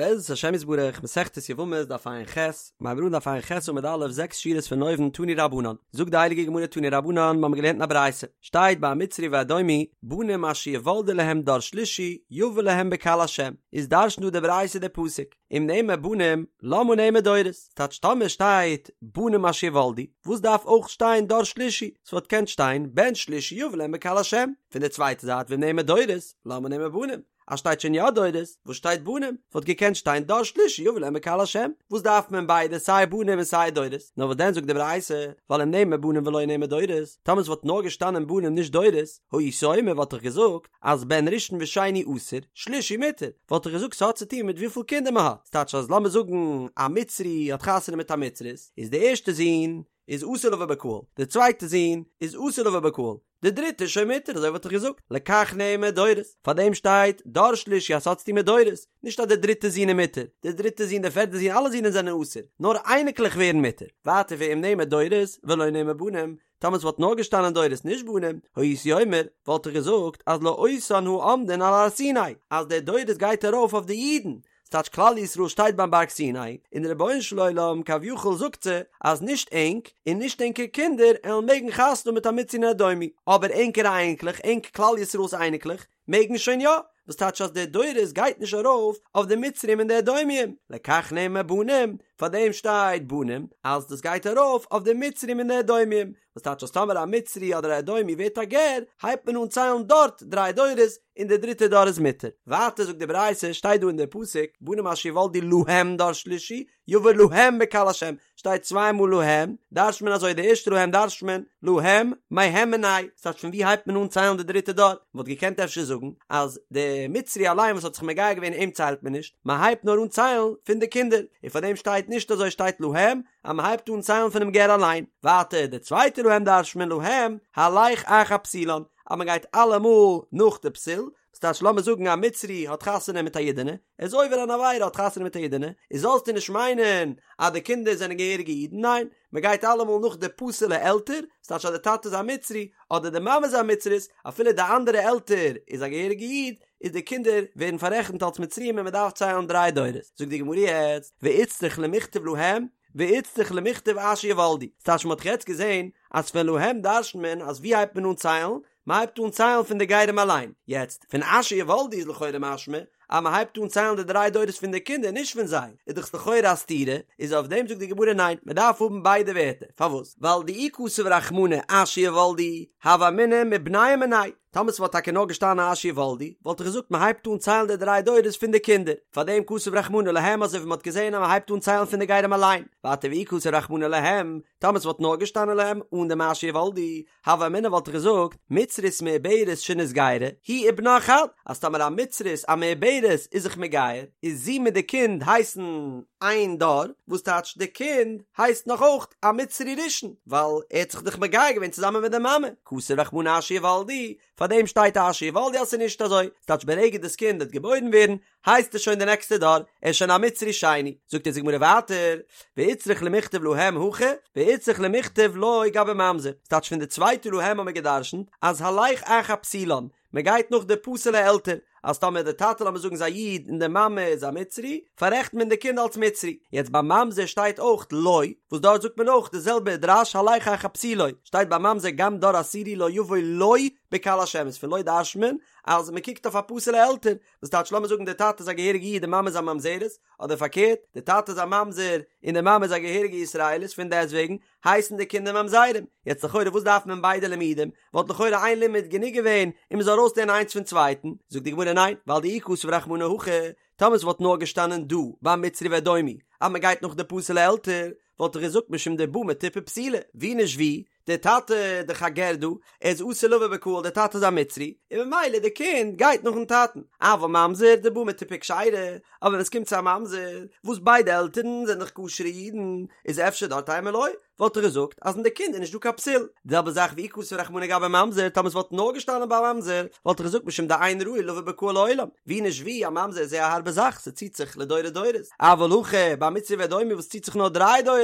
בעזרת השם יתברך, מסכת יבמות דף ע"ח, מיר הייבן אן דף ע"ח עמוד א', זעקס שורות פון אויבן, תנו רבנן, זאגט די הייליגע גמרא תנו רבנן, מיר האבן געלערנט אין א ברייתא, שטייט ביי המצרי והאדומי, בנים אשר יולדו להם דור שלישי, יבא להם בקהל השם, איז דרש'נט דא די ברייתא די פסוק, אם נאמר בנים, למה נאמר דורות? ס'טייטש טאמער שטייט בנים אשר יולדו, וואס דארף אויך שטיין דור שלישי? ס'וואלט געקענט שטיין בן שלישי יבא להם בקהל השם. פון די צווייטע זייט ואם נאמר דורות, למה נאמר בנים? אז שטייט שוין יא דורות, וואס שטייט בנים? וואלט געקענט שטיין דור שלישי יבא להם בקהל השם, וואס דארף מען ביידע סיי בנים און סיי דורות? נאר וואס דען זאגט די ברייתא, ווייל אם נאמר בנים ולא נאמר דורות, טאמער עס וואלט נאר געשטאנען בנים נישט דורות, הייתי אומר וואלט איך געזאגט אז בן ראשון ושני אסור, שלישי מותר, וואלט איך געזאגט ס'האט צו טון מיט וויפיל קינדער מען האט, ס'טייטש אז לאמיר זאגן א מצרי האט חתונה מיט א מצרית, איז די ערשטע זון איז אסור לבוא בקהל, די צווייטע זון איז אסור לבוא בקהל, די דריטע איז שוין מותר, אזוי וואלט איך געזאגט, לכך נאמר דורות, פאר דעם שטייט דור שלישי אז ס'האט צוטון מיט דורות, נישט אז די דריטע זון איז מותר, די דריטע זון, די פערטע זון, אלע זונען זענען אסור, נאר אייניקלעך ווערן מותר, ווייטער ואם נאמר דורות ולא נאמר בנים, טאמער ס'וואלט נאר געשטאנען דורות נישט בנים, הייתי אומר, וואלט איך געזאגט אז לאותן העומדין על הר סיני, אז די דורות גייט ארויף אויף די אידן, ס'טייטש כלל ישראל שטייט ביים בארג סיני, און די רבונו של עולם כביכול זאגט זיי אז נישט ענק און נישט ענקער קינדער עלן מעגן חתונה האבן מיט א מצרי און אדומי, אבער ענקערע אייניקלעך, ענק כלל ישראל'ס אייניקלעך, מעגן שוין יא, וואס טייטש אז די דורות גייט נישט ארויף אויף די מצרים און די אדומיים, לכך נאמר בנים, פאר דעם שטייט בנים אז דאס גייט ארויף אויף די מצרים און די אדומיים, וואס טייטש אז טאמער א מצרי אדער א אדומי ווערט א גר, הייבט מען אן ציילן דארט דריי דורות, און דער דריטער דור איז מותר. ווייטער זאגט די ברייתא, שטייט דא אין דער פסוק, בנים אשר יולדו להם דור שלישי, יבא להם בקהל השם, שטייט צוויי מאל להם, דרש'ט מען אזוי, די ערשטע להם דרש'ט מען, להם, מהם מיניה, ס'טייטש פון ווי הייבט מען אן ציילן די דריטע דור? מ'וואלט געקענט אפשר זאגן, אז די מצרי אליין וואס האט זיך מגייר געווען אים ציילט מען נישט, מ'הייבט נאר אן ציילן פון די קינדער, און פאר דעם שטייט נישט אזוי שטייט להם, אז מען הייבט אן ציילן פונעם גר אליין, ווייטער די צווייטע להם דרש'ט מען להם הלך אחר פסולן, אז מען גייט אלעמאל נאך די פסול, וואס טייטש לאמיר זאגן א מצרי האט חתונה מיט א אידענע, ער איז עובר אן עבירה האט חתונה מיט א אידענע, איז זאלסטו נישט מיינען אז די קינדער זענען געהעריגע אידן, ניין, מען גייט אלעמאל נאך די פסול'ע עלטער, וואס טייטש אז די טאטע איז א מצרי, אדער די מאמע איז א מצרית, אפילו די אנדערע עלטער איז א געהעריגע איד, איז די קינדער ווערן פאררעכנט אלס מצריים און מען דארף ציילן דריי דורות, זאגט די גמרא יעצט, ואיצטריך למיכתב להם, ואיצטריך למיכתב אשר יולדו, ס'טייטש מען האט דאך יעצט געזען אז פון להם דרש'נט מען אז ווי הייבט מען אן ציילן? מען הייבט אן ציילן פון די גרים אליין, יעצט פון אשר יולדו איז לכאורה משמע אז מען הייבט אן ציילן די דריי דורות פון די קינדער נישט פון זיי, איז דאך לכאורה א סתירה, איז אויף דעם זאגט די גמרא ניין, מען דארף האבן ביידע ווערטער, פארוואס? ווייל דאי כתב רחמנא אשר יולדו, הוה אמינא מבניהם מיניה, טאמער ס'וואלט טאקע נאר געשטאנען אשר יולדו, וואלט איך געזאגט מ'הייבט אן ציילן די דריי דורות פון די קינדער, פארדעם כתב רחמנא להם אזוי ווי מ'האט געזען אז מ'הייבט אן ציילן פון די גרים אליין, ווייטער ואי כתב רחמנא להם, טאמער ס'וואלט נאר געשטאנען להם אן דעם אשר יולדו, הוה אמינא וואלט איך געזאגט, מצרית מעוברת שנתגיירה, היא ובנה חד, אז טאמער א מצרית א מעוברת איז זיך מגייר, איז זי מיט די קינד הייסן איין דור, וואס טייטש די קינד הייסט נאך אויך א מצרי ראשון, ווייל ער האט זיך דאך מגייר געווען צוזאמען מיט די מאמע, כתב רחמנא אשר יולדו, פאר דעם שטייט אשר יולדו אז ס'איז נישט אזוי, ס'טייטש ברגע דאס קינד וועט געבוירן ווערן, הייסט עס שוין די נעקסטע דור, ער איז שוין א מצרי שני, זאגט אונז די גמרא ווייטער, ואיצטריך למיכתב להם הכא, ואיצטריך למיכתב לא גבי ממזר, ס'טייטש פון די צווייטע להם האבן מיר גע'דרש'נט אז הלך אחר פסולן, מען גייט נאך די פסול'ע עלטער, אז טאמער די טאטע לאמיר זאגן איז א איד און די מאמע איז א מצרי, פאררעכנט מען די קינד אלס מצרי. יעצט ביי ממזר שטייט אויך לא, וואס דארט זאגט מען אויך די זעלבע דרש הלך אחר פסולו, שטייט ביי ממזר גם דור עשירי לא יבוא לו בקהל השם איז פון לא דרש'נט מען אז מען קוקט אויף א פסול'ע עלטער, וואס טייטש לאמיר זאגן די טאטע איז א געהעריגע איד די מאמע איז א ממזרת, אדער פארקערט די טאטע איז א ממזר און די מאמע איז א געהעריגע ישראלית פון דעסטוועגן הייסן די קינדער ממזרים. יעצט לכאורה וואס דארף מען ביידע לימודים? וואלט לכאורה איין לימוד גענוג געווען און מען זאל ארויסלערנען איינס פון צווייטן. זאגט די גמרא ניין, ווייל דאי כתב רחמנא הכא, טאמער ס'וואלט נאר געשטאנען דא ביי מצרי ואדומי אז מען גייט נאך די פסול'ע עלטער, וואלט איך געזאגט משום דבא מטיפה פסולה, ווי נישט ווי, דער טאטע דאך א גר דא, ער איז אסור לבוא בקהל, דער טאטע איז א מצרי, און ממילא די קינד גייט נאכן טאטן. אבל ממזר דבא מטיפה כשרה, אבער ווען עס קומט צו א ממזר, וואס ביידע עלטערן זענען דאך כשר'ע אידן, איז אפשר דארט אימא לא, וואלט איך געזאגט אז אין די קינד איז נישט דא קיין פסול. די זעלבע זאך ואי כתב רחמנא גבי ממזר, טאמער עס וואלט נאר געשטאנען ביי ממזר, וואלט איך געזאגט משום דאין ראוי לבוא בקהל לעולם, ווי נישט ווי, א ממזר איז זייער א הארבע זאך, ס'ציט זיך לדורי דורות. אבל הכא, ביי מצרי ואדומי וואס ציט זיך נאר דריי דורות,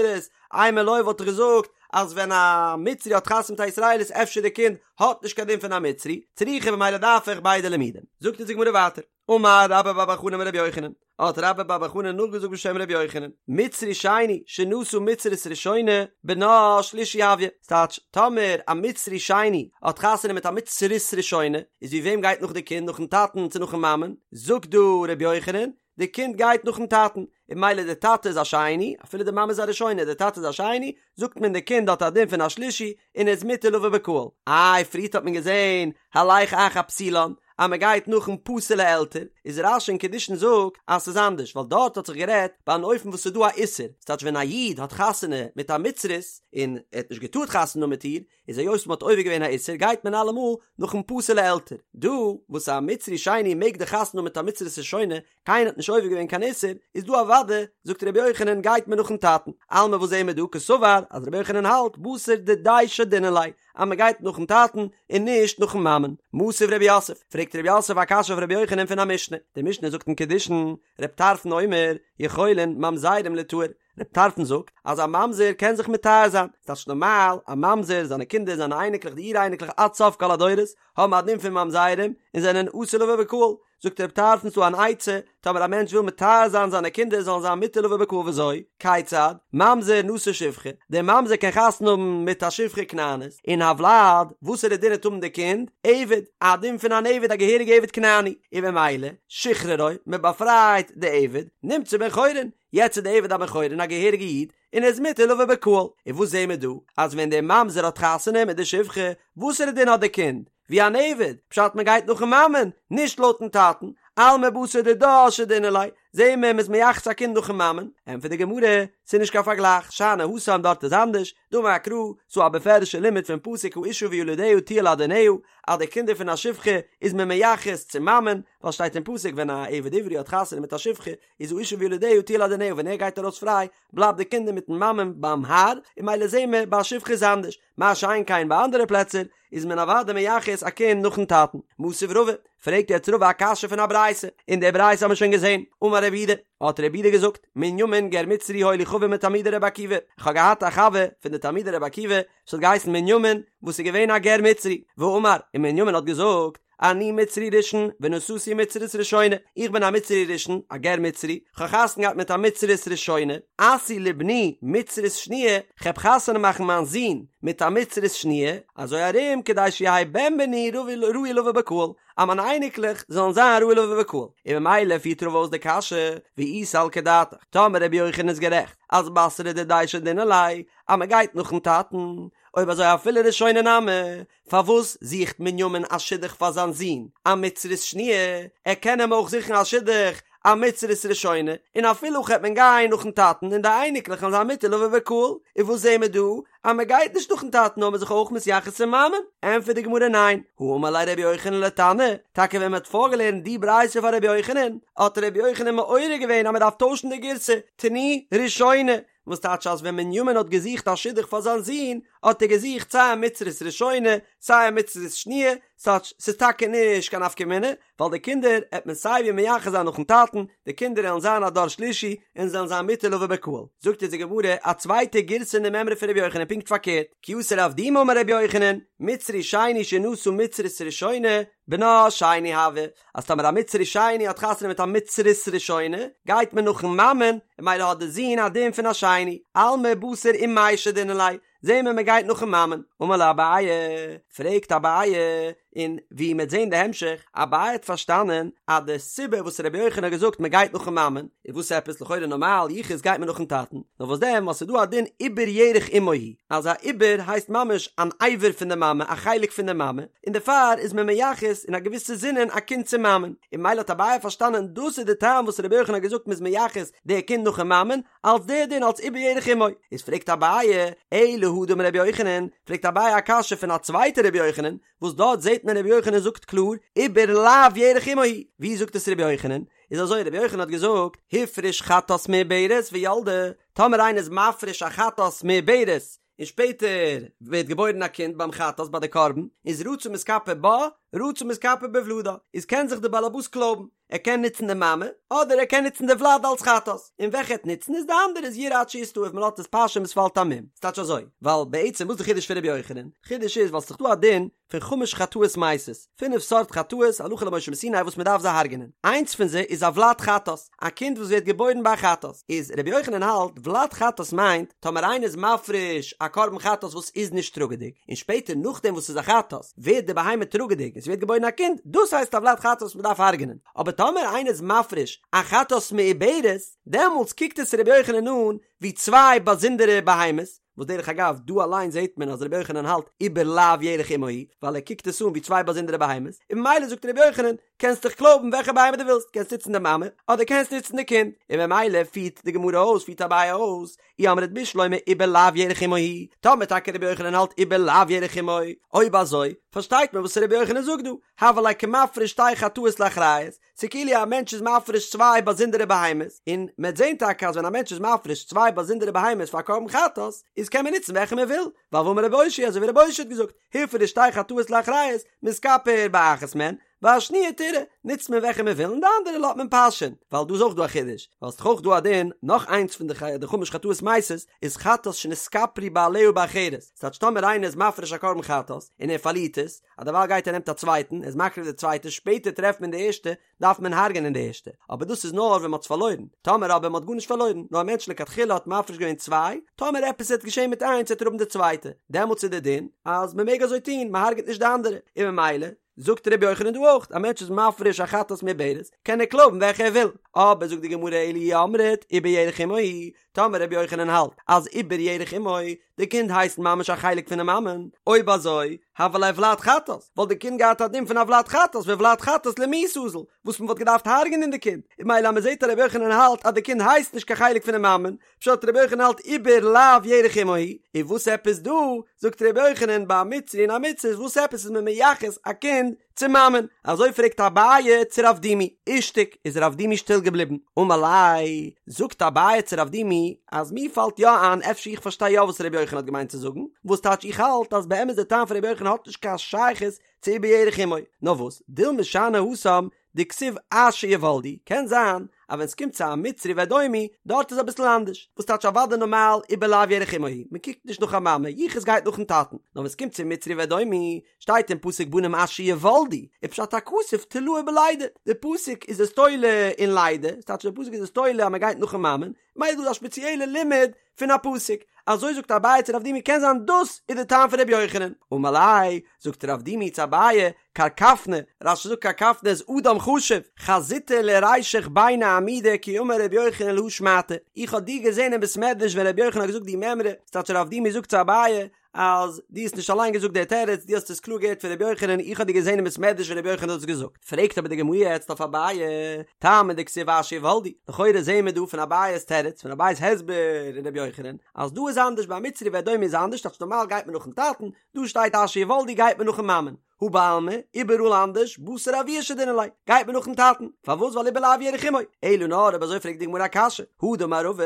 אימא לא וואלט איך געזאגט אז ווען א מצרי האט חתונה מיט א ישראלית אפשר די קינד האט נישט קיין דין פון א מצרי, צריכא במילא דארף איך ביידע לימודים. זאגט אונז די גמרא ווייטער. אמר רבה בר בר חנה אמר רבי יוחנן, האט רבה בר בר חנה נאכגעזאגט בשם רבי יוחנן, מצרי שני שנשא מצרית ראשונה בנה שלישי הויא, ס'טייטש, טאמער א מצרי שני האט חתונה מיט א מצרית ראשונה, איז ווי וועם גייט נאך די קינד, נאכן טאטן צו נאכן מאמען? זאגט דא רבי יוחנן, די קינד גייט נאכן טאטן, און ממילא די טאטע איז א שני, אפילו די מאמע איז א ראשונה, די טאטע איז א שני, זאגט מען די קינד האט א דין פון א שלישי, און איז מותר לבוא בקהל. איי, פריערט האט מען געזען, הלך אחר פסולן, אז מען גייט נאכן פסול'ע עלטער, איז רש"י אין קידושין זאגט אז ס'איז אנדערש, ווייל דארט האט זיך גערעדט ביי אן אופן וואס ס'איז דא א איסור, ס'טייטש ווען א איד האט חתונה מיט א מצרית, און ער האט נישט געטארט חתונה האבן מיט איר, איז היות מ'האט עובר געווען א איסור גייט מען אלעמאל נאכן פסול'ע עלטער. דא וואס א מצרי שני מעג דאך חתונה האבן מיט א מצרית ראשונה, קיינער האט נישט עובר געווען קיין איסור, איז דא אוודאי, זאגט רבי יוחנן, גייט מען נאכן טאטן. אלמא וואס זעהן מיר דא? קסבר אז רבי יוחנן האלט בתר דידיה שדינן ליה, אז מען גייט נאכן טאטן און נישט נאכן מאמען. מתיב רב יוסף, פרעגט רב יוסף א קשיא אויף רבי יוחנן פון א משנה. די משנה זאגט אין קידושין, רב טרפון אומר, יכולין ממזרים ליטהר, רב טרפון זאגט אז א ממזר קען זיך מטהר זיין, ס'טייטש נארמאל, א ממזר, זיינע קינדער, זיינע אייניקלעך, די אור אייניקלעך עד סוף כל הדורות, האבן א דין פון ממזרים און זענען אסור לבוא בקהל. זאגט רב טרפון ס'דא אן עצה, טאמער א מענטש וויל מטהר זיין זיינע קינדער זאלן זיין מותר לבוא בקהל וויאזוי? כיצד? ממזר נשא שפחה, דער ממזר קען חתונה האבן מיט א שפחה כנענית, און הולד, וואסערע דין וועט האבן די קינד? עבד, א דין פון אן עבד, א געהעריגע עבד כנעני, און במילא, שחררו, מען באפרייט די עבד, נמצא בן חורין, יעצט איז די עבד א בן חורין א געהעריגע איד, און ער איז מותר לבוא בקהל, און וואס זעהן מיר דא? אז ווען דער ממזר האט חתונה מיט די שפחה, וואסערע דין האט די קינד? ווי אן עבד, פשט מען גייט נאכן מאמען, נישט לויטן טאטן, אלמא בתר דידה שדינן ליה, זעהן מיר מ'איז מייחס א קינד נאכן מאמען, ענטפערט די גמרא, ס'איז נישט קיין פארגלייך, שאני התם דארט איז אנדערש, דאמר קרא, ס'דא א בפירוש'ע לימוד פון פסוק האשה וילדיה תהיה לאדוניה, אז די קינדער פון א שפחה איז מען מייחס צום מאמען, ווייל שטייט אין פסוק ווען א עבד עברי האט חתונה מיט א שפחה, איז האשה וילדיה תהיה לאדוניה ווען ער גייט ארויס פריי בלייבט די קינדער מיטן מאמען ביים האר, און ממילא זעהן מיר ביי א שפחה איז אנדערש, מה שאין כן ביי אנדערע פלעצער איז מען אוודאי מייחס א קינד נאכן טאטן. מתיב רבא, פרעגט יעצט רבא א קשיא פון א ברייתא, און די ברייתא האבן מיר שוין געזעהן, אמר רב יהודה, האט רב יהודה געזאגט, מנימין גר מצרי היה לי חבר מתלמידי רבי עקיבא, איך האב געהאט א חבר פון די תלמידי רבי עקיבא וואס האט געהייסן מנימין, וואס איז געווען א גר מצרי, ואמר, און מנימין האט געזאגט, אני מצרי ראשון ונשאתי מצרית ראשונה, איך בין א מצרי ראשון, א גר מצרי, כ'האב חתונה געהאט מיט א מצרית ראשונה, אשיא לבני מצרית שניה, כ'העב חתונה מאכן מיין זון מיט א מצרית שניה, אזוי ארום כדי שיהא בן בני ראוי לבוא בקהל, אז מיינע אייניקלעך זאלן זיין ראוי לבוא בקהל, און ממילא פירט רבא אויס די קשיא, ואי סלקא דעתך, טאמער רבי יוחנן איז גערעכט, אז בתרא דידיה שדינן ליה, אז מ'גייט נאכן טאטן, אויב אזוי אפילו ראשונה נמי, פארוואס זוכט מנימין א שידוך פאר זיין זון א מצרית שניה, ער קען אים אויך זוכן א שידוך א מצרית ראשונה, און אפילו הכי העט מען גיין נאכן טאטן און די אייניקלעך וועלן זיין מותר לבוא בקהל, און וואס זעהן מיר דא? אז מען גייט נישט נאכן טאטן נאר מען איז זיך אויך מתייחס צום מאמען? ענטפערט די גמרא ניין, הא אמר ליה רבי יוחנן לתנא, טאקע ווען מען האט פארגעלערנט די ברייתא פאר רבי יוחנן, האט רבי יוחנן מעורר געווען אז מען דארף טוישן די גירסא, תני ראשונה, וואס טייטש אז ווען מנימין האט געזוכט א שידוך פאר זיין זון, האט ער געזוכט סיי א מצרית ראשונה, סיי א מצרית שניה, ס'טייטש ס'איז טאקע נישט קיין נפקא מינה, ווייל די קינדער העט מען סיי ווי מייחס זיין נאכן טאטן, די קינדער העלן זיין א דור שלישי, און זעלן זיין מותר לבוא בקהל. זאגט אונז די גמרא א צווייטע גירסא אין די מימרא פון רבי יוחנן פונקט פארקערט, כי אתא רב דימי אמר רבי יוחנן, מצרי שני שנשא מצרית ראשונה, בנה שני הוי, אז טאמער א מצרי שני האט חתונה מיט א מצרית ראשונה, גייט מען נאכן מאמען, און ממילא האט די זון א דין פון א שני, אלמא בתר אימיה שדינן ליה, זעהן מיר מען גייט נאכן מאמען. אמר ליה אביי, פרעגט אביי, און ווי מ'עט זעהן די המשך, אביי האט פארשטאנען אז די סיבה וואס רבי יוחנן האט געזאגט מען גייט נאכן מאמען, איז וואס עפעס לכאורה נארמאל יחוס גייט מען נאכן טאטן, נאר וואס דען ווייל ס'איז דא א דין עובר ירך אמו הוא, אז א עובר הייסט ממש אן אבר פון די מאמע, א חלק פון די מאמע, און דערפאר איז מען מייחס אין א געוויסע זינען א קינד צום מאמען, און ממילא האט אביי פארשטאנען דאס איז די טעם וואס רבי יוחנן האט געזאגט מ'איז מייחס די קינד נאכן מאמען, אלס די דין אלס עובר ירך אמו. איז פרעגט אביי, אלא הא דאמר רבי יוחנן, פרעגט אביי א קשיא פון א צווייטע רבי יוחנן, וואס דארט זעט מען רבי יוחנן זאגט קלאר, עובר לאו ירך אמו הוא, ווי זאגט עס רבי יוחנן? איז אזוי רבי יוחנן האט געזאגט, הפריש חטאת מעוברת וילדה, טאמער איינער איז מפריש א חטאת מעוברת, און שפעטער ווערט געבוירן א קינד ביים חטאת ביי די קרבן, איז רצה מתכפר בה, רצה מתכפר בוולדה, איז קען זיך די באלעבאס קלויבן, ער קען נוצן די מאמע, אדער ער קען נוצן די וולד אלס חטאת, און וועלכע ער וועט נוצן איז די אנדערע איז ירעה עד שיסתאב, מען לאזט עס פאשען ביז ס'פאלט א מום, ס'טייטש אזוי, ווייל בעצם וואס איז די חידוש פון רבי יוחנן? חידוש איז ווייל ס'איז דאך דא א דין. פון חמש חטאות מתות, פינף סארט חטאות הלכה למשה מסיני וואס מען דארף זיי הרג'נען, איינס פון זיי איז א ולד חטאת, א קינד וואס ווערט געבוירן ביי א חטאת, איז רבי יוחנן האלט ולד חטאת מיינט טאמער איינער איז מפריש א קרבן חטאת וואס איז נישט טראגעדיג, און שפעטער נאכדעם וואס ס'איז א חטאת ווערט די בהמה טראגעדיג און ס'ווערט געבוירן א קינד, דאס הייסט א ולד חטאת וואס מען דארף הרג'נען, אבער טאמער איינער איז מפריש א חטאת מעוברת, דעמאלטס קוקט עס רבי יוחנן אן ווי צוויי באזונדערע בהמות, וואס דרך אגב דא אליין זעהט מען אז רבי יוחנן האלט עובר לאו ירך אמו הוא, ווייל ער קוקט עס אן ווי צוויי באזונדערע בהמות, און ממילא זאגט רבי יוחנן, קענסט דיך קלויבן וועלכע בהמה דו ווילסט, קענסט נוצן די מאמע, אדער קענסט נוצן די קינד, און ממילא פירט די גמרא אויס, פירט אביי אויס, אי אמרת בשלמא עובר לאו ירך אמו הוא, טאמער טאקע רבי יוחנן האלט עובר לאו ירך אמו, אויב אזוי, פארשטייט מען וואס רבי יוחנן זאגט דא, הוה ליה כמפריש שתי חטאות לאחריות, ס'כאילו א מענטש איז מפריש צוויי באזונדערע בהמות, און מ'עט זען טאקע אז ווען א מענטש איז מפריש צוויי באזונדערע בהמות פאר א קרבן חטאת, איז קען מען נוצן וועלכע מען וויל, ווייל והאמר רבי אושעיא אזוי ווי רבי אושעיא האט געזאגט, הפריש שתי חטאות לאחריות, מתכפר באחת מהן, והשניה תרעה, נוצט מען וועלכע מען וויל און די אנדערע לאזט מען פאשען, ווייל דא איז אויך דא א חידוש, ווייל ס'דאך אויך דא א דין, נאך איינס פון די חמש חטאות מתות, איז חטאת שנתכפרו בעליה באחרת, ס'טייטש טאמער איינער איז מפריש א קרבן חטאת, און ער פארלירט עס, אז דערווייל גייט ער נעמט א צווייטן, ער איז מקריב די צווייטע, שפעטער טרעפט מען די ערשטע, דארף מען הרג'ענען די ערשטע, אבער דאס איז נאר ווען מ'האט עס פארלוירן, טאמער אבער מ'האט גארנישט פארלוירן, נאר א מענטש לכתחילה האט מפריש געווען צוויי, טאמער עפעס וועט געשען מיט איינס וועט ער האבן די צווייטע, דעמאלטס איז די דין אז מ'מעג אזוי טון, מ'הרג'עט נישט די אנדערע, און ממילא זאגט ר' יוחנן דא אויך, א מענטש איז מפריש א חטאת מעוברת, קען ער קלויבן וועלכע ער וויל, אבער זאגט די גמרא אלא אי אמרת עובר ירך אמו הוא, טאמער רבי יוחנן האלט אז עובר ירך אמו, די קינד הייסט ממש א חלק פונעם מאמען, אויב אזוי, הוה ליה ולד חטאת, וואלט די קינד געהאט א דין פון א ולד חטאת וולד חטאת למיתה אזיל, וואס מען וואלט געדארפט הרג'נען די קינד, און ממילא אז מען זעט אז רבי יוחנן האלט אז די קינד הייסט נישט קיין חלק פונעם מאמען, פשט רבי יוחנן האלט עובר לאו ירך אמו הוא, און וואס עפעס דא, זאגט רבי יוחנן ביי א מצרי און א מצרית וואס עפעס איז מען מייחס א קינד צום מאמען, אזוי פרעגט אביי צו רב דימי, אישתיק, איז רב דימי שטיל געבליבן, אמר ליה, זאגט אביי צו רב דימי, אז מיר פאלט יא איין אפשר איך פארשטיי יא וואס רבי יוחנן האט געמיינט צו זאגן, וואס טייטש איך האלט אז באמת די טעם פון רבי יוחנן האט נישט קיין שייכות צו עובר ירך אמו, נאר וואס, דילמא שאני התם דכתיב אשר יולדו, קען זיין אז ווען ס'קומט צו א מצרי ואדומי, דארט איז אביסל אנדערש, וואס טייטש אוודאי נארמאל עובר לאו ירך אמו הוא, מ'קוקט נישט נאך א מאמע, יחוס גייט נאכן טאטן, נאר ווען ס'קומט צו מצרי ואדומי, שטייט אין פסוק בנים אשר יולדו, ופשט הכתוב תלאו בלידה, די פסוק איז עס תולה אין לידה, ס'טייטש די פסוק איז עס תולה אז מ'גייט נאכן מאמען, ממילא איז דא א שפעציעלע לימוד פון א פסוק, אזוי זאגט אביי צו רב דימי קען זיין דאס איז די טעם פון רבי יוחנן, אמר ליה, זאגט רב דימי צו אביי, קרקפנא, רש"י זאגט קרקפנא איז אדם חשוב, חזיתא לרישך ביני עמודי כי אמר רבי יוחנן להא שמעתא, איך האב דיר געזען אין בית מדרש ווען רבי יוחנן האט געזאגט די מימרא, ס'טייטש רב דימי זאגט צו אביי, אז דו האסט נישט אליין געזאגט די תירוץ, דו האסט עס קלאר געהערט פון רבי יוחנן, איך האב דיר געזען אין בית מדרש ווען רבי יוחנן האט עס געזאגט. פרעגט אבער די גמרא יעצט אויף אביי, טעמא דכתיב אשר יולדו, לכאורה זעען מיר דא פון אביי'ס תירוץ, פון אביי'ס הסבר אין רבי יוחנן, אז דא איז אנדערש ביי מצרי ואדומי איז אנדערש, טייטש נארמאל גייט מען נאכן טאטן, דא שטייט אשר יולדו גייט מען נאכן מאמען. הא בעלמא, איבעראל אנדערש, בתר אבוה שדינן ליה, גייט מען נאכן טאטן, פארוואס ווייל עובר לאו ירך אמו, אלא נאר אויב אזוי פרעגט די גמרא א קשיא, הא דאמר רבא,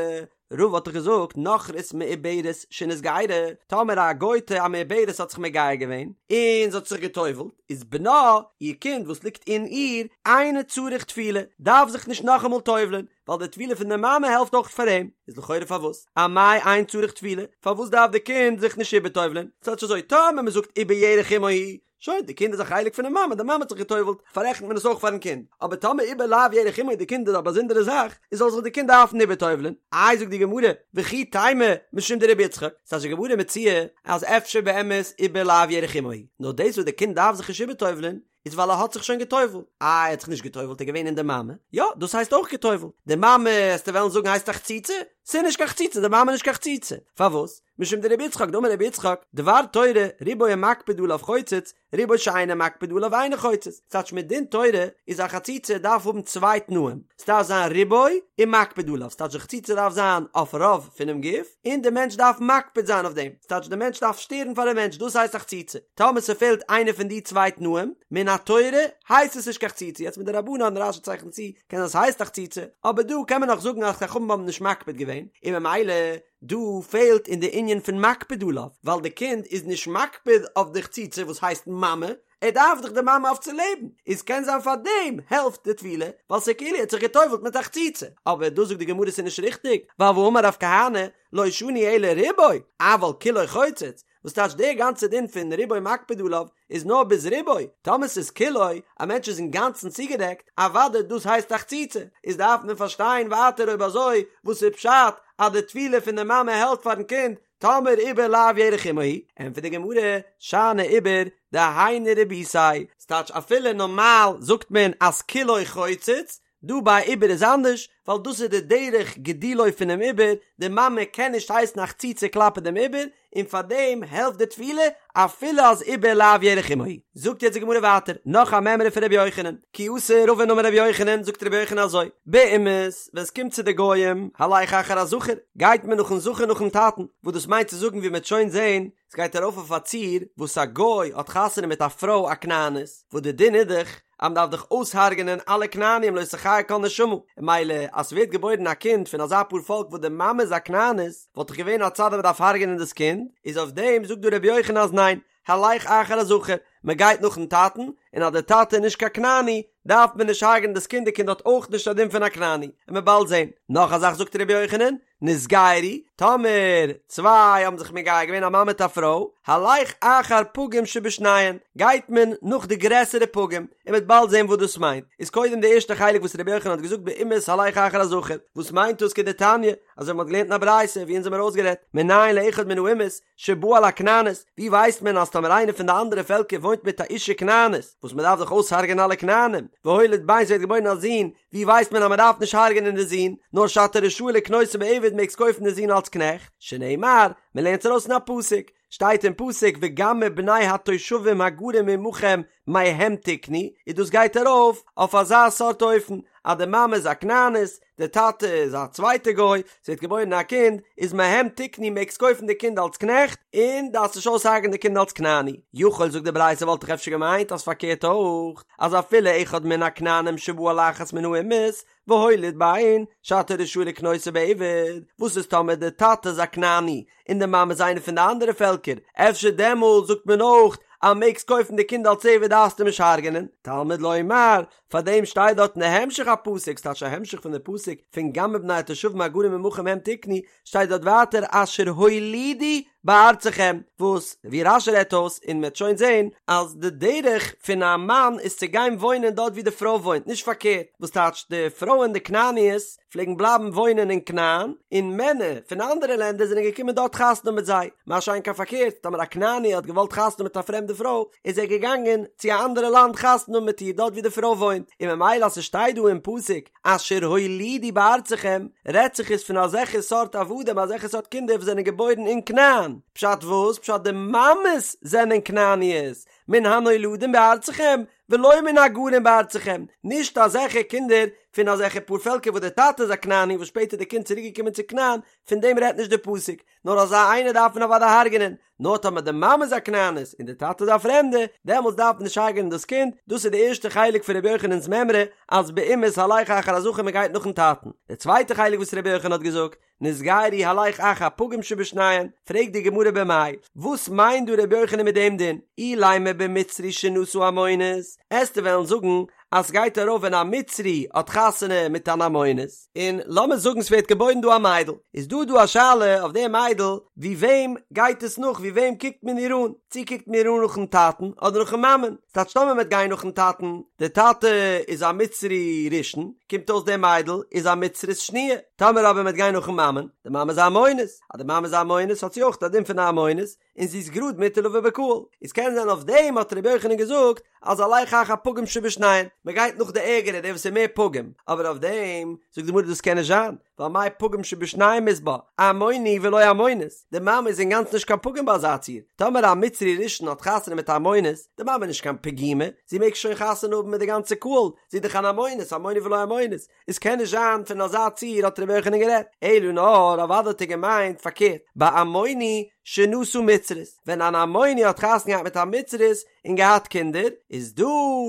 רבא האט דאך געזאגט נכרית מעוברת שנתגיירה, טאמער א גויטע א מעוברת האט זיך מגייר געווען, און זי האט זיך גע'טובל'ט, איז בנה, איר קינד וואס ליגט אין איר, אינו צריך טבילה, דארף זיך נישט נאכאמאל טובל'ען, ווייל די טבילה פון די מאמע העלפט אויך פאר אים, איז לכאורה פארוואס? אמאי אין צריך טבילה? פארוואס דארף די קינד זיך נישט איבערטובל'ען? ס'טייטש אזוי, טאמער מ'זאגט עובר ירך אמו הוא, שוין, די קינד איז א חלק פונעם מאמע, די מאמע האט זיך גע'טובל'ט, פאררעכנט מען עס אויך פארן קינד. אבער טאמער עובר לאו ירך אמו די קינד איז א באזונדערע זאך, איז זאל זיך די קינד דארפן איבער'טובל'ען. איי זאגט די גמרא, וכי תימא משום דרבי יצחק, ס'טייטש די גמרא מציע אז אפשר באמת עובר לאו ירך אמו הוא, נאר דאס וואס די קינד דארף זיך נישט איבער'טובל'ען, איז ווייל ער האט זיך שוין גע'טובל'ט. איי ער האט זיך נישט גע'טובל'ט ער איז געווען אין די מאמע, יא דאס הייסט אויך גע'טובל'ט. די מאמע, עסטו וועלן זאגן הייסט א חציצה? ס'איז נישט קיין חציצה, די מאמע איז נישט קיין חציצה. פארוואס? משום דרבי יצחק דאמר רבי יצחק, דבר תורה, רובו המקפיד עליו חוצץ, רובו שאינו מקפיד עליו אינו חוצץ. ס'טייטש מדין תורה איז א חציצה דארף האבן צוויי תנאים, ס'דארף זיין רובו און מקפיד עליו, ס'טייטש די חציצה דארף זיין אויף רוב פונעם גוף, און די מענטש דארף מקפיד זיין אויף דעם, ס'טייטש די מענטש דארף שטערן פאר די מענטש, דאס הייסט א חציצה. טאמער ס'פעלט איינע פון די צוויי תנאים, מן התורה הייסט עס נישט קיין חציצה, יעצט מדרבנן, רש"י צייכנט צו, קען זיין ס'הייסט א חציצה, אבער דא קען מען נאך זאגן אז חכמים האבן נישט מקפיד געווען, און ממילא דא פעלט אין די ענין פון מקפיד עליו, ווייל די קינד איז נישט מקפיד אויף די חציצה וואס הייסט מאמע, ער דארף דאך די מאמע אויף צו לעבן, איז קען זיין פאר דעם העלפט די טבילה, ווייל ס'איז כאילו ער האט זיך גע'טובל'ט מיט א חציצה, אבער דא זאגט די גמרא ס'איז נישט ריכטיג, ווייל והאמר רב כהנא, לא שנו אלא רובו, אבל כולו חוצץ. וואס טייטש דער גאנצער דין פון רובו מקפיד עליו איז נאר ביז רובו, טאמער ס'איז כולו, א מענטש איז אינגאנצן צוגעדעקט, אוודאי דאס הייסט א חציצה, איז דארף מען פארשטיין ווייטער אויב אזוי וואס איז פשט אז די טבילה פון די מאמע העלפט פארן קינד טאמער עובר לאו ירך אמו הוא, ענטפערט די גמרא, שאני עובר דהיינו רבותיה, ס'טייטש אפילו נארמאל זאגט מען אז כולו חוצץ, דא ביי עובר איז אנדערש, ווייל דאס איז די דרך גידולו פונעם עובר, די מאמע קען נישט הייסן א חציצה כלפי דעם עובר, און פאר דעם העלפט די טבילה אפילו אז עובר לאו ירך אמו הוא. זאגט יעצט די גמרא ווייטער נאך א מימרא פון רבי יוחנן, כי אתא רבין אמר רבי יוחנן, זאגט רבי יוחנן אזוי, באומות, ווען עס קומט צו די גוים, הלך אחר הזכר, גייט מען נאכן זכר נאכן טאטן, וואס דאס מיינט צו זאגן ווי מען וועט שוין זען, עס גייט ארויף אויף א ציור וואס א גוי האט חתונה מיט א פרוי א כנענית, וואס די דין איז דאך אז מען דארף דאך אויסהארגענען אלע כנענים לא תחיה כל נשמה, און ממילא אז ס'ווערט געבוירן א קינד פון אזא פאר פאלק וואס די מאמע איז א כנענית, וואלט דאך געווען א צד אז מען דארף הרג'ענען דאס קינד, איז אויף דעם זאגט דא רבי יוחנן אז ניין, הלך אחר הזכר, מען גייט נאכן טאטן, און אז דער טאטע איז נישט קיין כנעני, דארף מען נישט הרג'ענען דאס קינד, די קינד האט אויך נישט א דין פון א כנעני, און מ'עט באלד זען. נאך א זאך זאגט רבי יוחנן, נתגיירו, טאמער צוויי האבן זיך מגייר געווען א מאן מיט א פרוי, הלך אחר פגום שבשניהם, גייט מען נאך די גרעסערע פגום, און מ'וועט באלד זען וואס דאס מיינט. איז קודם די ערשטע חלק וואס רבי יוחנן האט געזאגט באומות הלך אחר הזכר, וואס מיינט דאס כדתניא, אזוי ווי מ'האט געלערנט אין א ברייתא ווי אונז האמיר אויסגערעדט, מנין לאחד מן האומות שבא על הכנענית, ווי ווייסט מען אז טאמער איינער פון די אנדערע פעלקער וואוינט מיט א אישה כנענית, וואס מ'דארף דאך אויסהרג'ענען אלע כנענים, והוליד בן ס'ווערט געבוירן א זון, ווי ווייסט מען אז מען דארף נישט הרג'ענען די זון, נאר שאתה רשאי לקנותו בעבד מעגסט קויפן די זון אלס קנעכט, שנאמר, מען לערנט עס ארויס אין א פסוק, שטייט אין פסוק וגם מבני התושבים הגרים עמכם מהם תקנו, און דאס גייט ארויף אויף אזא סארט אופן, אז די מאמע איז א כנענית, די טאטע איז א צווייטע גוי, ס'ווערט געבוירן א קינד, איז מהם תקנו מעגסט קויפן די קינד אלס קנעכט, און דארפסט נישט אויסהרג'ענען די קינד אלס כנעני. יכול זאגט די ברייתא וואלט איך אפשר געמיינט אז פארקערט אויך, אז אפילו אחד מן הכנענים שבא על אחת מן האומות והוליד בן שאתה רשאי לקנותו בעבד, וואס איז טאמער די טאטע איז א כנעני און די מאמע איז איינע פון די אנדערע פעלקער, אפשר דעמאלט זאגט מען אויך אז מעגסט קויפן די קינד אלס עבד דארפסט אים נישט הרג'ענען, תלמוד לומר, פאר דעם שטייט דארט אין די המשך הפסוק, ס'טייטש א המשך פון די פסוק פון גם מבני התושבים הגרים עמכם מהם תקנו, שטייט דארט ווייטער אשר הולידו בארצכם, וואס ווי רש"י רעדט אויס און מ'וועט שוין זען אז די דרך פון א מאן איז צו גיין וואוינען דארט ווי די פרוי וואוינט נישט פארקערט, וואס טייטש די פרויען די כנעניות פלעגן בלייבן וואוינען אין כנען און מענער פון אנדערע לענדער זענען געקומען דארט חתונה האבן מיט זיי, מה שאין כן פארקערט טאמער א כנעני האט געוואלט חתונה האבן מיט א פרעמדע פרוי איז ער געגאנגען צו א אנדערע לאנד חתונה האבן מיט איר דארט ווי די פרוי וואוינט, און ממילא אז ס'שטייט דא אין פסוק אשר הולידו בארצכם, רעדט זיך עס פון אזעלכע סארט עבדים, אזעלכע סארט קינדער וואס זענען געבוירן אין כנען. פשט וואס? פשט די מאמעס זענען כנעניות, מן הנולדים בארצכם, ולא מן הגרים בארצכם, נישט אזעלכע קינדער פון אזעלכע פארפעלקער וואס דער טאטע איז א כנעני וואס שפעטער איז די קינד צוריק געקומען צו כנען, פון דעם רעדט נישט די פסוק, נאר אזא איינער דארף מען אוודאי הרג'נען, נאר טאמער די מאמע איז א כנענית און די טאטע איז א פרעמדע, דעמאלטס דארף מען נישט הרג'נען דאס קינד, דאס איז די ערשטע חלק פון רבי יוחנן'ס מימרא, אז באומות הלך אחר הזכר מען גייט נאכן טאטן. די צווייטע חלק וואס רבי יוחנן האט געזאגט, נתגיירו הלך אחר פגום שבשניהם, פרעגט די גמרא במאי, וואס מיינט דא רבי יוחנן מיט דעם דין? אילימא במצרי שנשא עמונית, עסטו וועלן זאגן אז סגייט ארויף ווען א מצרי האט חתונה מיט אן עמונית, און לאמיר זאגן ס'ווערט געבוירן דא א מיידל, איז דא דא א שאלה אויף די מיידל, ווי וועם גייט עס נאך, ווי וועם קוקט מען איר אן, צו קוקט מען איר אן נאכן טאטן אדער נאכן מאמען, ס'טייטש טאמער מ'וועט גיין נאכן טאטן, די טאטע איז א מצרי ראשון, קומט אויס די מיידל איז א מצרית שניה, טאמער אבער מ'וועט גיין נאכן מאמען, די מאמע איז א עמונית, אז די מאמע איז א עמונית האט זי אויך א דין פון א עמונית, און זי איז גראד מותר לבא בקהל, איז קען זיין אויף דעם האט רבי יוחנן געזאגט אז הלך אחר פגום שבשניהם, מען גייט נאך די ערגערע דער וואס איז מער פגום, אבער אויף דעם זאגט די גמרא דאס קען נישט זיין, ווייל מאי פגום שבשניהם אית בה, עמוני ולא עמונית, די מאמע איז אינגאנצן נישט קיין פגום ביי אזא ציור, טאמער א מצרי ראשון האט חתונה מיט א עמונית, די מאמע איז נישט קיין פגימה, זי מעג שוין חתונה האבן מיט די גאנצע קהל, זי איז דאך אן עמונית, עמוני ולא עמונית, עס קען נישט זיין פון אזא ציור האט רבי יוחנן גערעדט, אלא נאר אוודאי האט ער געמיינט פארקערט, בעמוני שנשא מצרית, ווען אן עמוני האט חתונה געהאט מיט א מצרית און געהאט קינדער, איז דא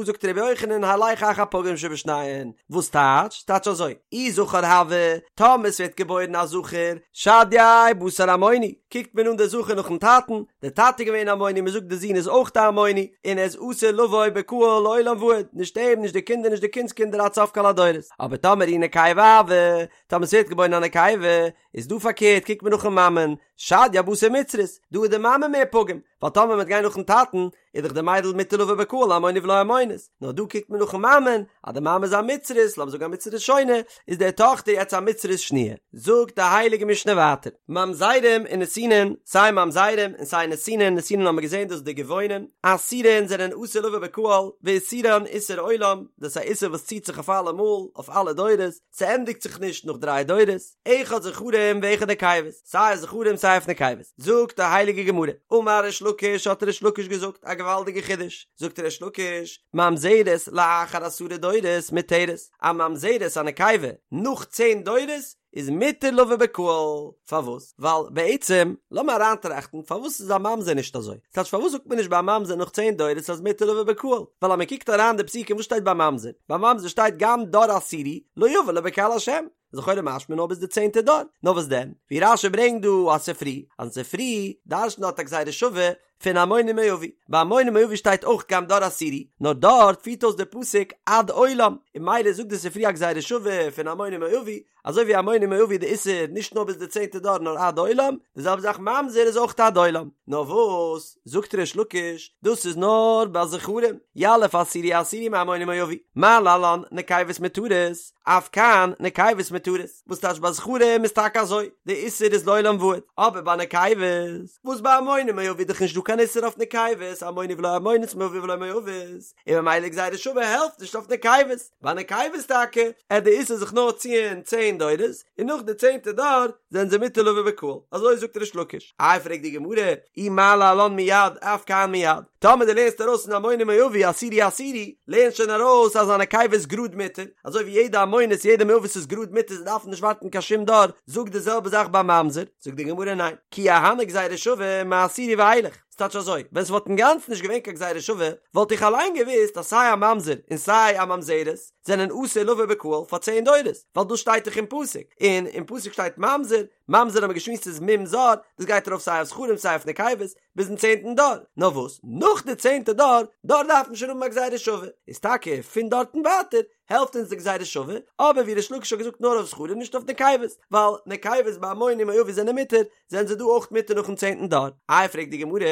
זאגט רבי יוחנן הלך אחר פגום שבשניהם, וואס טייטש? טייטש אזוי, אי זכר הוה, טאמער ס'ווערט געבוירן א זכר, שדייה בתר עמוני, קוקט מען אן די זכר נאכן טאטן, די טאטע איז געווען עמוני, מ'זאגט די זון איז אויך א עמוני, און ער איז אסור לבוא בקהל לעולם ועד, נישט אים, נישט די קינדער, נישט די קינדס קינדער עד סוף כל הדורות. אבער טאמער אי נקבה הואי, טאמער ס'ווערט געבוירן א נקבה, איז דא פארקערט קוקט מען נאכן מאמען, שדיא בתר מצרית, דא איז די מאמע מער פגום, ווייל טאמער מ'וועט גיין נאכן טאטן, איז דאך די מיידל מותר לבוא בקהל עמוני ולא עמונית, נאר דא קוקט מען נאכן מאמען, אז די מאמע איז א מצרית, לאמיר זאגן א מצרית ראשונה, איז די טאכטער יעצט א מצרית שניה. זאגט די הייליגע משנה ווייטער, ממזרים ונתינין, סיי ממזרים און סיי נתינין, נתינין האבן מיר געזען דאס איז די גבעונים, אסורין זענען אסור לבוא בקהל, ואיסורן איסור עולם, דאס איז א איסור וואס ציט זיך אויף אלעמאל, אויף אלע דורות, ס'ענדיגט זיך נישט נאך דריי דורות, אחד זכרים ואחד נקבות, סיי אויף זכרים סיי אויף נקבות, זאגט די הייליגע גמרא, אמר ריש לקיש האט ריש לקיש געזאגט א געוואלדיגע חידוש, זאגט ריש לקיש, ממזרת לאחר עשרה דורות מותרת, א ממזרת א נקבה נאך צען דורות איז מותר לבוא בקהל, פארוואס? ווייל בעצם, לאמיר אריינטראכטן, פארוואס איז א ממזר נישט אזוי? ס'טייטש פארוואס זאגט מען נישט ביי א ממזר נאך צען דורות אז מותר לבוא בקהל? ווייל אז מען קוקט אריין די פסוקים וואס שטייט ביי ממזר? ביי ממזר שטייט גם דור עשירי לא יבא לו בקהל השם, איז לכאורה משמע נאר ביז די צענטע דור, נאר וואס דען? ווי רש"י ברענגט דא א ספרי, אז אין ספרי דרש'נט דארט א גזירה שווה פון עמוני ומואבי, ביי עמוני ומואבי שטייט אויך גם דור עשירי, נאר דארט פירט אויס דער פסוק עד עולם, און ממילא זאגט די ספרי א גזירה שווה פון עמוני ומואבי, אזוי ווי עמוני ומואבי די איסור נישט נאר ביז די צענטע דור נאר עד עולם, די זעלבע זאך ממזר איז אויך עד עולם. נאר וואס, זאגט ריש לקיש, דאס איז נאר ביי זכרים, יליף עשירי עשירי מעמוני ומואבי, מה להלן נקבות מותרות, אף כאן נקבות מותרות, וואס טייטש ביי זכרים איז טאקע אזוי, די איסור איז לעולם ועד, אבער ביי נקבות, וואס ביי עמוני ומואבי איז דאך נישט דא קיין איסור אויף נקבות, עמוני ולא עמונית מואבי ולא מואבית, און ממילא גזירה שווה העלפט נישט אויף נקבות, ביי נקבות טאקע, עט די איסור זיך נאר ציען צען דורות, און נאך די צענטע דור זענען זיי מותר לבוא בקהל, אזוי זאגט ריש לקיש. איי פרעגט די גמרא, אי מה להלן מיד אף כאן מיד, טאמער דו לערנסט ארויס פון עמוני ומואבי עשירי עשירי, לערנסט שוין ארויס אז א נקבה איז גראד מותר, אזוי ווי יעדע עמונית יעדע מואבית איז גראד מותר זיי דארפן נישט ווארטן קיין שום דור, זאג די זעלבע זאך ביי ממזר, זאגט די גמרא ניין, כי אהני גזירה שווה מעשירי ואילך, ס'טייטש אזוי, ווען ס'וואלט אינגאנצן נישט געווען קיין גזירה שווה, וואלט איך אליין געוואוסט אז סיי א ממזר און סיי א ממזרת זענען אסור לבוא בקהל פאר צען דורות, ווייל דאס שטייט דאך אין פסוק, און אין פסוק שטייט ממזר, ממזר האבן מיר געשמועסט איז מום זר, דאס גייט ארויף סיי אויף זכרים סיי אויף נקבות, ביזן צענטן דור, נאר וואס נאך די צענטע דור, דארט דארף מען שוין האבן א גזירה שווה, איז טאקע פון דארטן ווייטער העלפט אונז די גזירה שווה, אבער ווי ריש לקיש האט געזאגט נאר אויף זכרים נישט אויף נקבות, ווייל נקבות ביי עמוני ומואבי זענען מותר, זענען זיי דא אויך מותר נאכן צענטן דור. איי פרעגט די גמרא,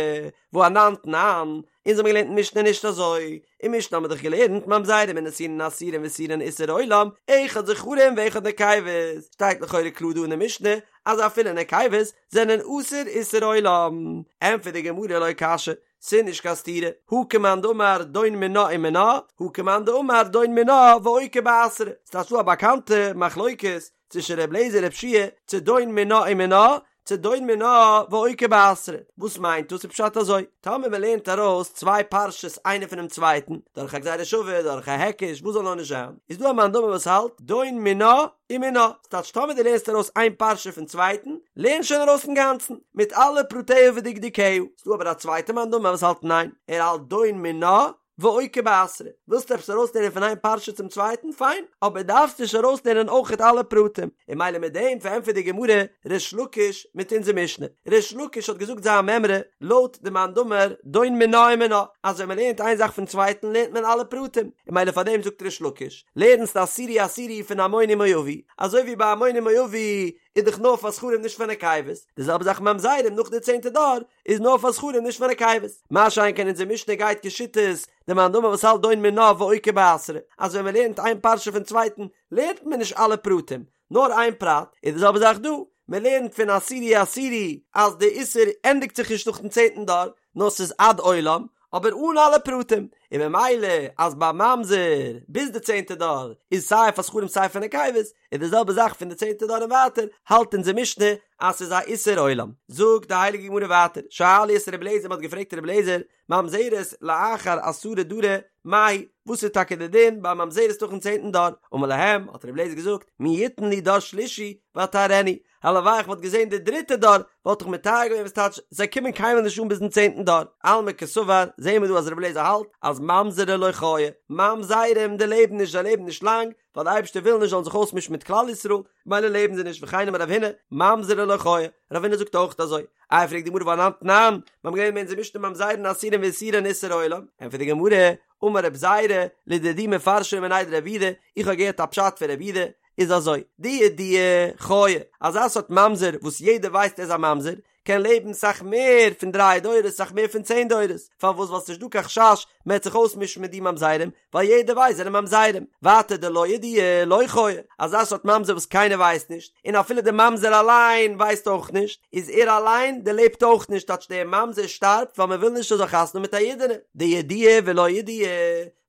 והא אנן תנן, אונז האבן געלערנט אין משנה נישט אזוי, אין משנה האבן מיר דאך געלערנט ממזרים ונתינין אסורין ואיסורן איסור עולם, אחד זכרים ואחד נקבות, שטייט לכאורה קלאר דא אין די משנה אז אפילו נקבות זענען אסור איסור עולם. ענטפערט די גמרא לא קשיא, ס'איז נישט קיין סתירה, הא כמאן דאמר דון מינה ומינה, הא כמאן דאמר דון מינה ואוקי באתרא, ס'איז דא א באקאנטע מחלוקת צווישן ר' לעזער ר' יהושע צו דון מינה ומינה, צו דון מינה ואוקי באתרא, וואס מיינט דאס? איז פשט אזוי, טאמער מען לערנט ארויס צוויי פרשות איינע פונעם צווייטן, דורך א גזירה שווה, דורך א היקש, וואס זאל נאר נישט זיין, איז דא א מאן דאמר וואס האלט דון מינה ומינה, ס'טייטש טאמער דו לערנסט ארויס איין פרשה פון צווייטן, לערן שוין ארויס אינגאנצן, מיט אלע פרטיה ודקדוקיה. ס'דא אבער א צווייטע מאן דאמר וואס האלט ניין, ער האלט דון מינה ואוקי באתרא. ווילסט עפעס ארויסלערנען פון איין פרשה צום צווייטן, פיין, אבער דארפסט נישט ארויסלערנען אויכעט אלע פרטים. און ממילא מיט דעם פארענטפערט די גמרא ריש לקיש מיט אונזער משנה. ריש לקיש האט געזאגט זיין מימרא לויט די מאן דאמר דון מינה ומינה, אז ווען מ'לערנט איין זאך פון צווייטן לערנט מען אלע פרטים, און ממילא פארדעם זאגט ריש לקיש, לערנסט עשירי עשירי פון עמוני ומואבי, אזוי ווי ביי עמוני ומואבי איז דאך נאר פאר זכרים נישט פאר נקבות, די זעלבע זאך ממזרים נאך די צענטע דור איז נאר פאר זכרים נישט פאר נקבות, מה שאין כן אונזער משנה גייט כשיטת די מאן דאמר וואס האלט דון מינה ואוקי באתרא, אז ווען מען לערנט איין פרשה פון צווייטן לערנט מען נישט אלע פרטים, נאר איין פרט, איז די זעלבע זאך דא, מען לערנט פון עשירי עשירי אז די איסור ענדיגט זיך נישט נאכן צענטן דור, נאר ס'איז עד עולם, אבער אן אלע פרטים, און ממילא אז ביי ממזר ביז די צענטע דור איז סיי פאר זכרים סיי פאר נקבות, איז די זעלבע זאך פון די צענטע דור און ווייטער, האלט אונזער משנה אז ס'איז א איסור עולם. זאגט די הייליגע גמרא ווייטער, שאלו את רבי אליעזר, מ'האט געפרעגט רבי אליעזר, ממזרת לאחר עשרה דרי מהו, וואס איז טאקע די דין ביי ממזרת נאכן צענטן דור? אמר להם, האט רבי אליעזר געזאגט, מי יתן לי דור שלישי ואטהרנו, הלוואי איך וואלט געזען די דריטע דור וואלט איך מטהר געווען וואס טייטש זיי קומען קיינמאל נישט אן ביזן צענטן דור, אלמא קסבר, זעהן מיר דא אז רבי אליעזר האלט אז. אז ממזרי לא חיי, ממזרים דערלעבן נישט זיי לעבן נישט לאנג, ווייל די אייבערשטער וויל נישט זאלן זיך אויסמישן מיט כלל ישראל, מילא לעבן זיי נישט וכן אמר רב הונא, ממזרי לא חיי, רב הונא זאגט אויך אזוי. איי פרעגט די גמרא והא אנן תנן, מיר האבן געלערנט אין אונזער משנה ממזרין אסורין ואיסורן איסור עולם, ענטפערט די גמרא, אמר רב זירא, לדידי מפרשא לי מיניה דרב יהודה, איך האב געהערט א פשט פון רב יהודה, איז אזוי, דידועי חיי, אזא סארט ממזר וואס יעדער ווייסט ער איז א ממזר, קען לעבן סאך מער פון דריי דורות סאך מער פון צען דורות, פארוואס ווייל ס'נישט דא קיין חשש מ'עט זיך אויסמישן מיט די ממזרים, ווייל יעדער ווייסט זענען ממזרים, ווייטער דלא ידיעי לא חיי, אזא סארט ממזר וואס קיינער ווייסט נישט, און אפילו די ממזר אליין ווייסט אויך נישט, איז ער אליין דערלעבט אויך נישט טייטש דער ממזר שטארבט ווייל מ'וויל נישט ער זאל חתונה האבן מיט א אידענע, דידיעי ולא ידיעי,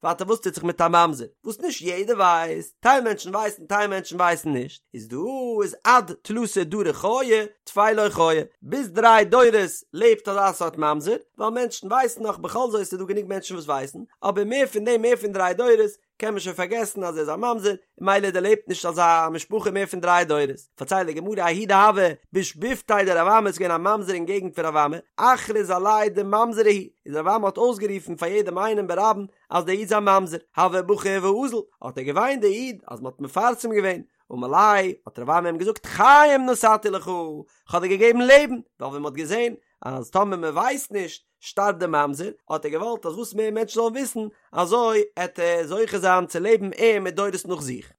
ווייטער וואס טוט זיך מיט א ממזר וואס נישט יעדער ווייסט, טייל מענטשן ווייסן טייל מענטשן ווייסן נישט, איז דא איז עד תלתא דרי חיי טפי לא חיי, ביז דריי דורות לעבט אזא סארט ממזר, ווייל מענטשן ווייסן נאך בכל זאת איז דא גענוג מענטשן וואס ווייסן, אבער מער פון דעם מער פון דריי דורות קען מען שוין פארגעסן אז ער איז א ממזר, מילא דערלעבט נישט אזא משפחה מער פון דריי דורות. פארציילט די גמרא ההוא דהוה בשיבבותיה דרב אמי איז געווען א ממזר אין געגנט פון רב אמי, אכריז עליה דממזרא הוא, איז רב אמי האט אויסגערופן פאר יעדעם איינעם ברבים אז דער איד איז א ממזר, הוה בכי ואזיל, האט ער געוויינט דער איד אז מען האט מפרסם געווען, אמר ליה, האט רב אמי אים געזאגט חיים נתתי לך, כ'האב דיר געגעבן לעבן, ווייל ווען מען האט געזען אז טאמער מען ווייסט נישט שטארבט דער ממזר, האט ער געוואלט אז וואס מער מענטשן זאלן וויסן, אזוי עט ער זוכה זיין צו לעבן ער מיט דורות נאך זיך.